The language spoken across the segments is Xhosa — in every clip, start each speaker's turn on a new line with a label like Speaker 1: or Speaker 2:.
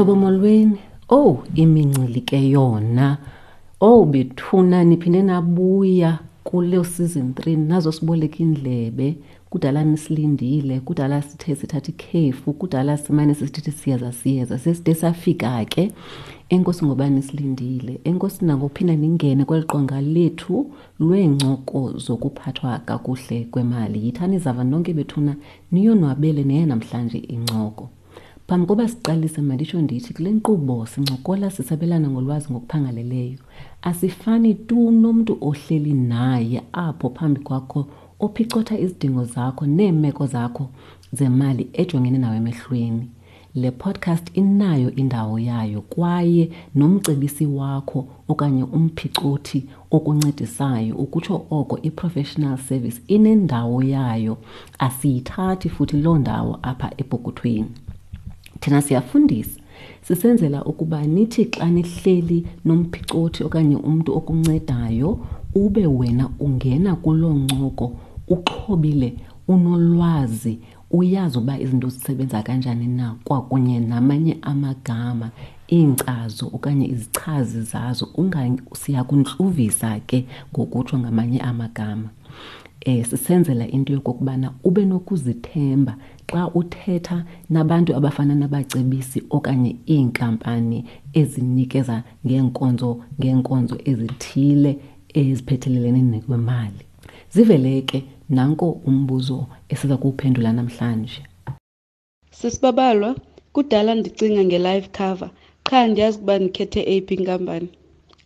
Speaker 1: Zihlobo molweni. Owu, imincili ke yona. Owu bethuna niphinde nabuya kule season 3 nazosiboleka indlebe. Kudala nisilindile, kudala sithe sithatha ikhefu, kudala simane sisithi siyeza siyeza. Seside safika ke. Enkosi ngoba nisilindile. Enkosi nangophinda ningene kweli qonga lethu lweencoko zokuphathwa kakuhle kwemali. Yithani zava nonke bethuna niyonwabele neye namhlanje incoko. Phambi koba siqalise manditsho ndithi kule nkqubo sincokola sisabelana ngolwazi ngokuphangaleleyo. Asifani tu nomntu ohleli naye apho phambi kwakho ophicotha izidingo zakho neemeko zakho zemali ejongene nawe emehlweni. Le podcast inayo indawo yayo kwaye nomcebisi wakho okanye umphicothi okuncedisayo ukutsho oko i-professional service inendawo yayo asiyithathi futhi loo ndawo apha epokothweni. Thina siyafundisa sisenzela ukuba nithi xa nihleli nomphicothi okanye umntu okuncedayo ube wena ungena kuloo ncoko uxhobile unolwazi uyazi uba izinto zisebenza kanjani na kwakunye namanye amagama iinkcazo okanye izichazi zazo siyakuntluvisa ke ngokutsho ngamanye amagama. Sisenzela into yokokubana ube nokuzithemba xa uthetha nabantu abafana nabacebisi okanye iinkampani ezinikeza ngeenkonzo ngeenkonzo ezithile eziphethelelene nekwemali. Zivele ke nanko umbuzo esiza kuwuphendula namhlanje.
Speaker 2: Sisibabalwa, kudala ndicinga nge-life cover, qha andiyazi ukuba ndikhethe eyiphi inkampani.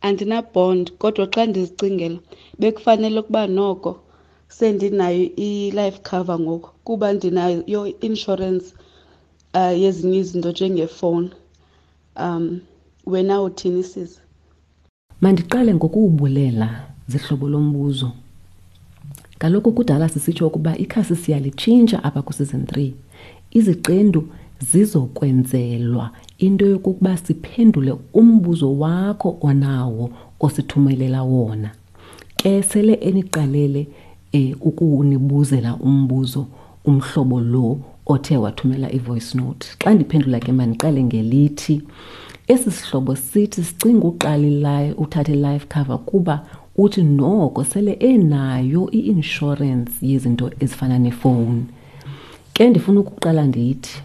Speaker 2: Andina-bond kodwa xa ndizicingela bekufanele ukuba noko sendinayo i-life cover ngoku kuba ndinayo i-insurance yezinye izinto njengefowuni. Wena uthini sisi?
Speaker 1: Mandiqale ngokuwubulela zihlobo lombuzo. Kaloku kudala sisitsho ukuba ikhasi siyalitshintsha apha kwi-season 3. Iziqendu zizokwenzelwa into yokokuba siphendule umbuzo wakho onawo osithumelela wona. Ke sele eniqalele ukunibuzela umbuzo umhlobo lo othe wathumela i-voice note. Xa ndiphendula ke mandiqale ngelithi esi sihlobo sithi sicinga uqala uthatha i-life cover kuba uthi noko sele enayo i-insurance yezinto ezifana nefowuni. Ke ndifuna ukuqala ndithi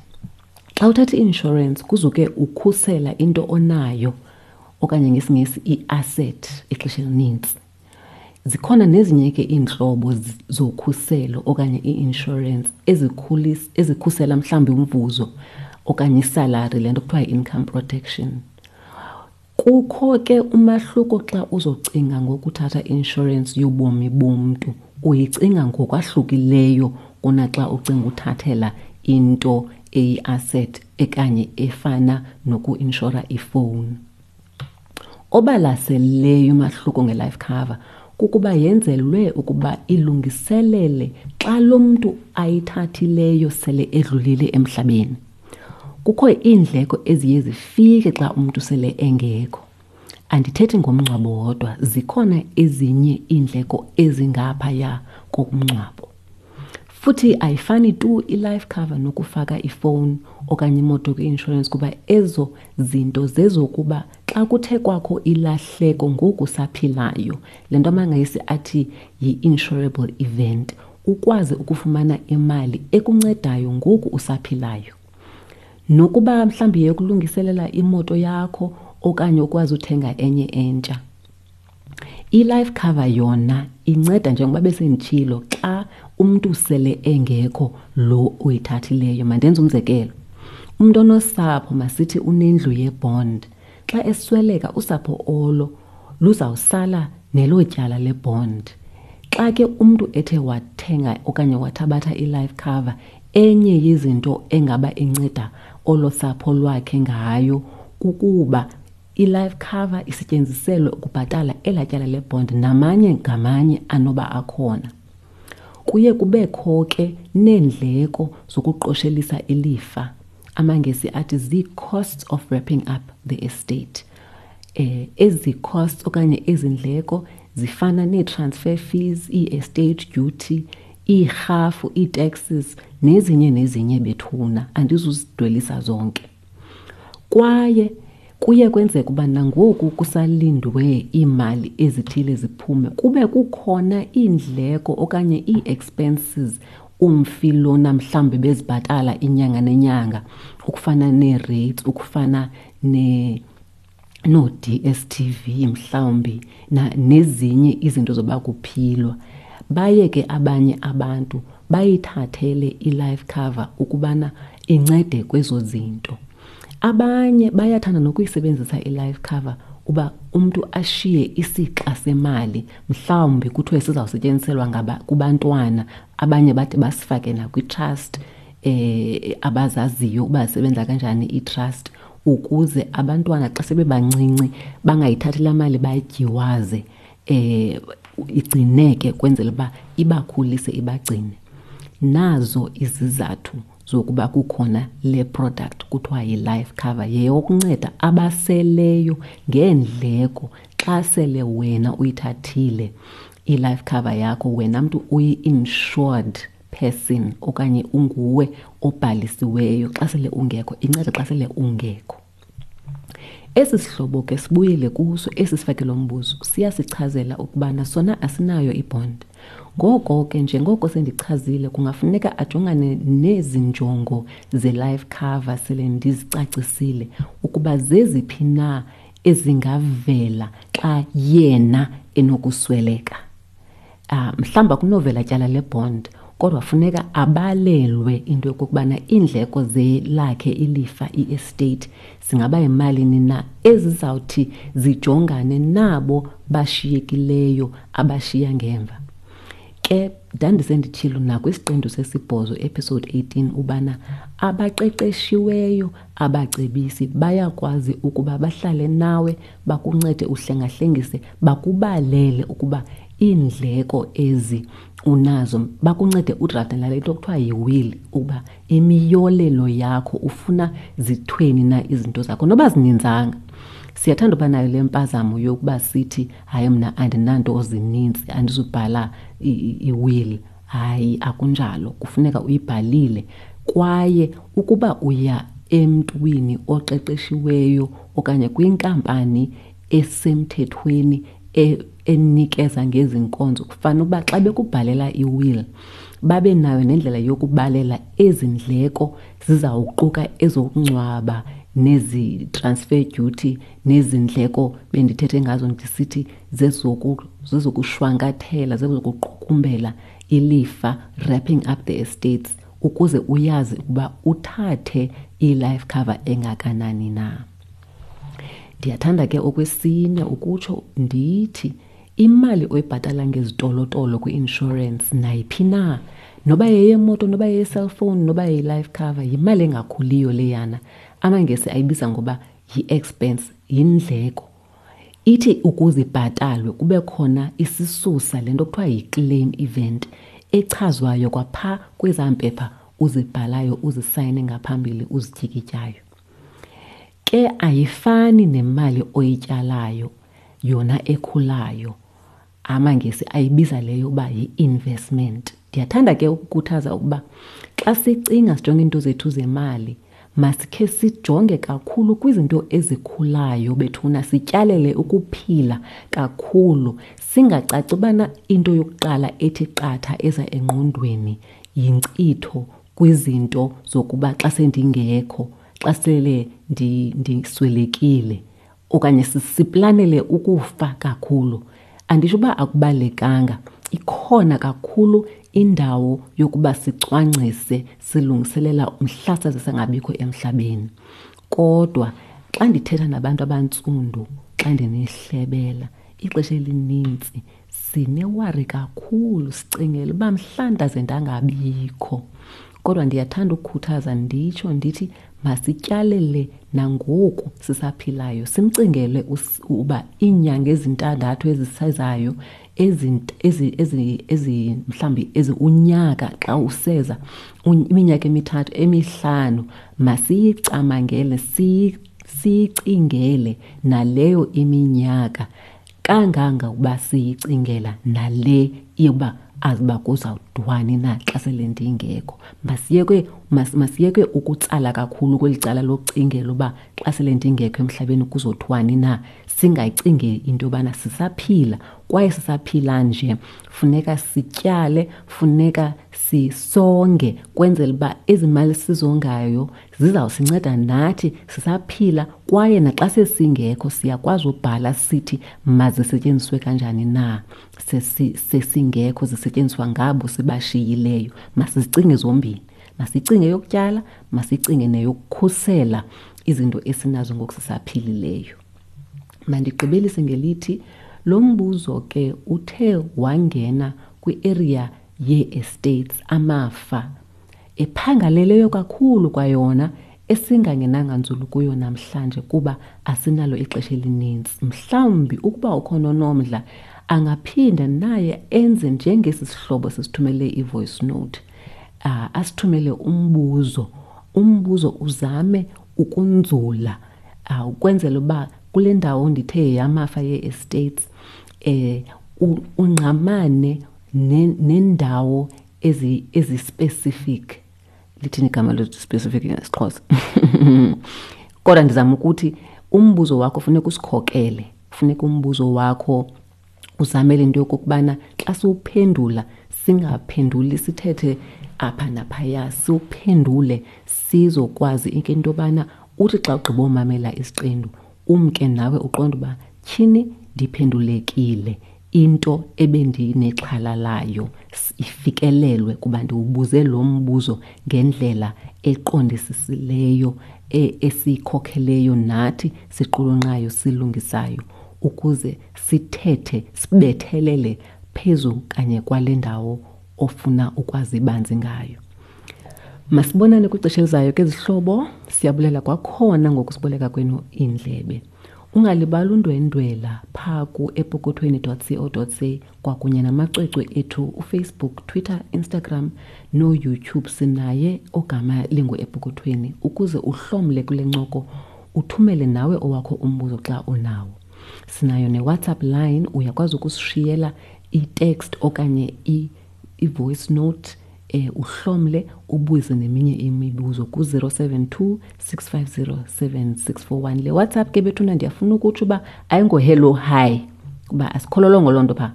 Speaker 1: xa uthatha i-insurance kuzuke ukhusela into onayo okanye ngesiNgesi i-asset ixesha elinintsi. Zikhona nezinye ke iintlobo zokhuselo okanye i-insurance ezikhusela mhlawumbi umvuzo okanye isalari, le nto kuthiwa yi-income protection. Kukho ke umahluko xa uzocinga ngokuthatha i-insurance yobomi bomntu, uyicinga ngokwahlukileyo kunaxa ucinga uthathela into eyi-asset ekanye efana noku-inshora ifowuni. Obalaseleyo umahluko nge-life cover kukuba yenzelwe ukuba ilungiselele xa lo mntu ayithathileyo sele edlulile emhlabeni. Kukho iindleko eziye zifike xa umntu sele engekho. Andithethi ngomngcwabo wodwa, zikhona ezinye iindleko ezingaphaya komngcwabo. Futhi ayifani tu i-life cover nokufaka ifowuni okanye imoto kwi-insurance kuba ezo zinto zezokuba xa kuthe kwakho ilahleko ngoku usaphilayo, le nto amaNgesi athi yi-insurable event, ukwazi ukufumana imali ekuncedayo ngoku usaphilayo. Nokuba mhlawumbi yeyokulungiselela imoto yakho okanye ukwazi uthenga enye entsha. I-life cover yona inceda njengoba besenditshilo xa umntu sele engekho lo uyithathileyo. Mandenze umzekelo. Umntu onosapho masithi unendlu yebond. Xa esweleka usapho olo luzawusala nelo tyala lebond. Xa ke umntu ethe wathenga okanye wathabatha i-life cover, enye yezinto engaba inceda olo sapho lwakhe ngayo kukuba i-life cover isetyenziselwe ukubhatala elaa tyala lebond namanye ngamanye anoba akhona. Kuye kubekho ke neendleko zokuqoshelisa ilifa. AmaNgesi athi zii-costs of wrapping up the estate. Ezi costs okanye ezi ndleko zifana nee-transfer fees, ii-estate duty, iirhafu, ii-taxes nezinye nezinye bethuna. Andizuzidwelisa zonke. Kwaye kuye kwenzeka uba nangoku kusalindwe iimali ezithile ziphume kube kukhona iindleko okanye ii-expenses umfi lona mhlawumbi bezibhatala inyanga nenyanga, ukufana nee-rates, ukufana noo-D_S_T_V mhlawumbi nezinye izinto zoba kuphilwa. Baye ke abanye abantu bayithathele i-life cover ukubana incede kwezo zinto. Abanye bayathanda nokuyisebenzisa i-life cover uba umntu ashiye isixa semali, mhlawumbi kuthiwe sizawusetyenziselwa kubantwana, abanye bade basifake nakwi-trust abazaziyo uba zisebenza kanjani ii-trust, ukuze abantwana xa sebebancinci bangayithathi laa mali bayityiwaze, igcineke kwenzela uba ibakhulise ibagcine. Nazo izizathu zokuba kukhona le product kuthiwa yi-life cover, yeyokunceda abaseleyo ngeendleko xa sele wena uyithathile i-life cover yakho, wena mntu uyi-insured person okanye unguwe obhalisiweyo xa sele ungekho, inceda xa sele ungekho. Esi sihlobo ke sibuyele kuso esi sifake lo mbuzo, siyasichazela ukubana sona asinayo ibond. Ngoko ke njengoko sendichazile, kungafuneka ajongane nezi njongo ze-life cover sele ndizicacisile ukuba zeziphi na ezingavela xa yena enokusweleka. Mhlawumbi akunovela tyala lebond, kodwa funeka abalelwe into yokokubana iindleko zelakhe ilifa, i-estate, zingaba yimalini na ezizawuthi zijongane nabo bashiyekileyo abashiya ngemva. Ke ndandisenditshilo nakwisiqendu sesibhozo, episode 18, ubana abaqeqeshiweyo abacebisi bayakwazi ukuba bahlale nawe, bakuncede uhlengahlengise, bakubalele ukuba iindleko ezi unazo, bakuncede udrafte nale nto kuthiwa yi-will, ukuba imiyolelo yakho ufuna zithweni na izinto zakho, noba zininzanga. Siyathanda uba nayo le mpazamo yokuba sithi hayi mna andinanto zininzi, andizubhala i-will. Hayi, akunjalo, kufuneka uyibhalile. Kwaye ukuba uya emntwini oqeqeshiweyo okanye kwinkampani esemthethweni enikeza ngezi nkonzo, kufanele uba xa bekubhalela i-will babe nayo nendlela yokubalela ezi ndleko zizawuquka ezokungcwaba nezi transfer duty nezi ndleko bendithethe ngazo ndisithi zezokushwankathela, zezokuqukumbela ilifa, wrapping up the estates, ukuze uyazi ukuba uthathe i-life cover engakanani na. Ndiyathanda ke okwesine ukutsho ndithi imali oyibhatala ngezitolotolo kwi-insurance nayiphi na, noba yeyemoto, noba yeye-cellphone, noba yeyi-life cover, yimali engakhuliyo leyana. AmaNgesi ayibiza ngoba yi-expense, yindleko. Ithi ukuze ibhatalwe kube khona isisusa, le nto kuthiwa yi-claim event, echazwayo kwapha kwezaa mpepha uzibhalayo, uzisayine ngaphambili, uzityikityayo. Ke ayifani nemali oyityalayo yona ekhulayo. AmaNgesi ayibiza leyo uba yi-investment. Ndiyathanda ke ukukhuthaza ukuba xa sicinga sijonge iinto zethu zemali, masikhe sijonge kakhulu kwizinto ezikhulayo bethuna, sityalele ukuphila kakhulu, singacaci ubana into yokuqala ethi qatha eza engqondweni yinkcitho kwizinto zokuba xa sendingekho, xa sele ndiswelekile, okanye siplanele ukufa kakhulu. Anditsho uba akubalulekanga, ikhona kakhulu indawo yokuba sicwangcise silungiselela mhla saze sangabikho emhlabeni. Kodwa xa ndithetha nabantu abantsundu, xa ndinihlebela, ixesha elinintsi sinewari kakhulu, sicingela uba mhla ndaze ndangabikho. Kodwa ndiyathanda ukukhuthaza nditsho ndithi masityalele nangoku sisaphilayo, simcingele uba iinyanga ezintandathu ezisezayo, mhlawumbi ezi unyaka xa useza, iminyaka emithathu, emihlanu, masiyicamangele, siyicingele naleyo iminyaka kangangokuba siyicingela nale yokuba azi uba kuzawudwani na xa sele ndingekho. Masiyeke, mas, masiyeke ukutsala kakhulu kweli cala lokucingela uba xa sele ndingekho emhlabeni kuzothiwani na. Singayicingi into yobana sisaphila kwaye sisaphila nje funeka sityale, funeka sisonge kwenzela uba ezi mali sizongayo zizawusinceda nathi sisaphila kwaye naxa sesingekho siyakwazi ubhala sithi mazisetyenziswe kanjani na sesingekho zisetyenziswa ngabo sibashiyileyo. Masizicinge zombini, masicinge yokutyala, masicinge neyokukhusela izinto esinazo ngoku sisaphilileyo. Mandigqibelise ngelithi lo mbuzo ke uthe wangena kwi-area yee-estates, amafa, ephangaleleyo kakhulu kwayona esingangenanga nzulu kuyo namhlanje kuba asinalo ixesha elininzi. Mhlawumbi ukuba ukhona onomdla angaphinda naye enze njengesi sihlobo sisithumele i-voice note, asithumele umbuzo. Umbuzo uzame ukunzula, ukwenzela uba kule ndawo ndithe yamafa yee-estates, ungqamane nendawo ezi-specific. Lithini igama lezi-specific ngesiXhosa? Kodwa ndizama ukuthi umbuzo wakho funeka usikhokele, funeka umbuzo wakho uzamele into yokokubana xa siwuphendula singaphenduli sithethe apha naphaya, siwuphendule sizokwazi into yobana uthi xa ugqiba umamela isiqendu umke nawe uqonde uba tyhini ndiphendulekile, into ebendinexhala layo ifikelelwe kuba ndiwubuze lo mbuzo ngendlela eqondisisileyo, esiyikhokheleyo nathi siqulunqayo silungisayo ukuze sithethe sibethelele phezu kanye kwale ndawo ofuna ukwazi banzi ngayo. Masibonane kwixesha elizayo ke zihlobo, siyabulela kwakhona ngokusiboleka kwenu iindlebe. Ungalibali undwendwela phaa ku-epokothweni dot co dot za kwakunye namacwecwe ethu uFacebook, Twitter, Instagram noYouTube. Sinaye ogama linguEpokothweni ukuze uhlomle kule ncoko, uthumele nawe owakho umbuzo xa unawo. Sinayo neWhatsApp line, uyakwazi ukusishiyela i-text okanye i-voice note, uhlomle ubuze neminye imibuzo ku-072 650 7641. Le WhatsApp ke bethuna ndiyafuna ukutsho uba ayingo-hello hi, kuba asikhololongo loo nto phaa.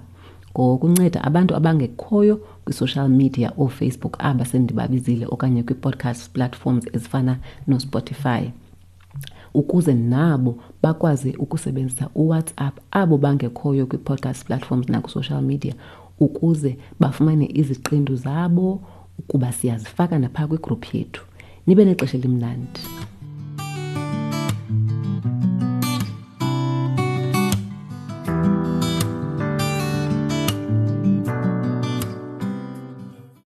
Speaker 1: Ngokunceda abantu abangekhoyo kwi-social media ooFacebook aba sendibabizile okanye kwi-podcast platforms ezifana noSpotify, ukuze nabo bakwazi ukusebenzisa uWhatsApp abo bangekhoyo kwi-podcast platforms nakwi-social media ukuze bafumane iziqendu zabo kuba siyazifaka naphaa kwigruphu yethu. Nibe nexesha elimnandi.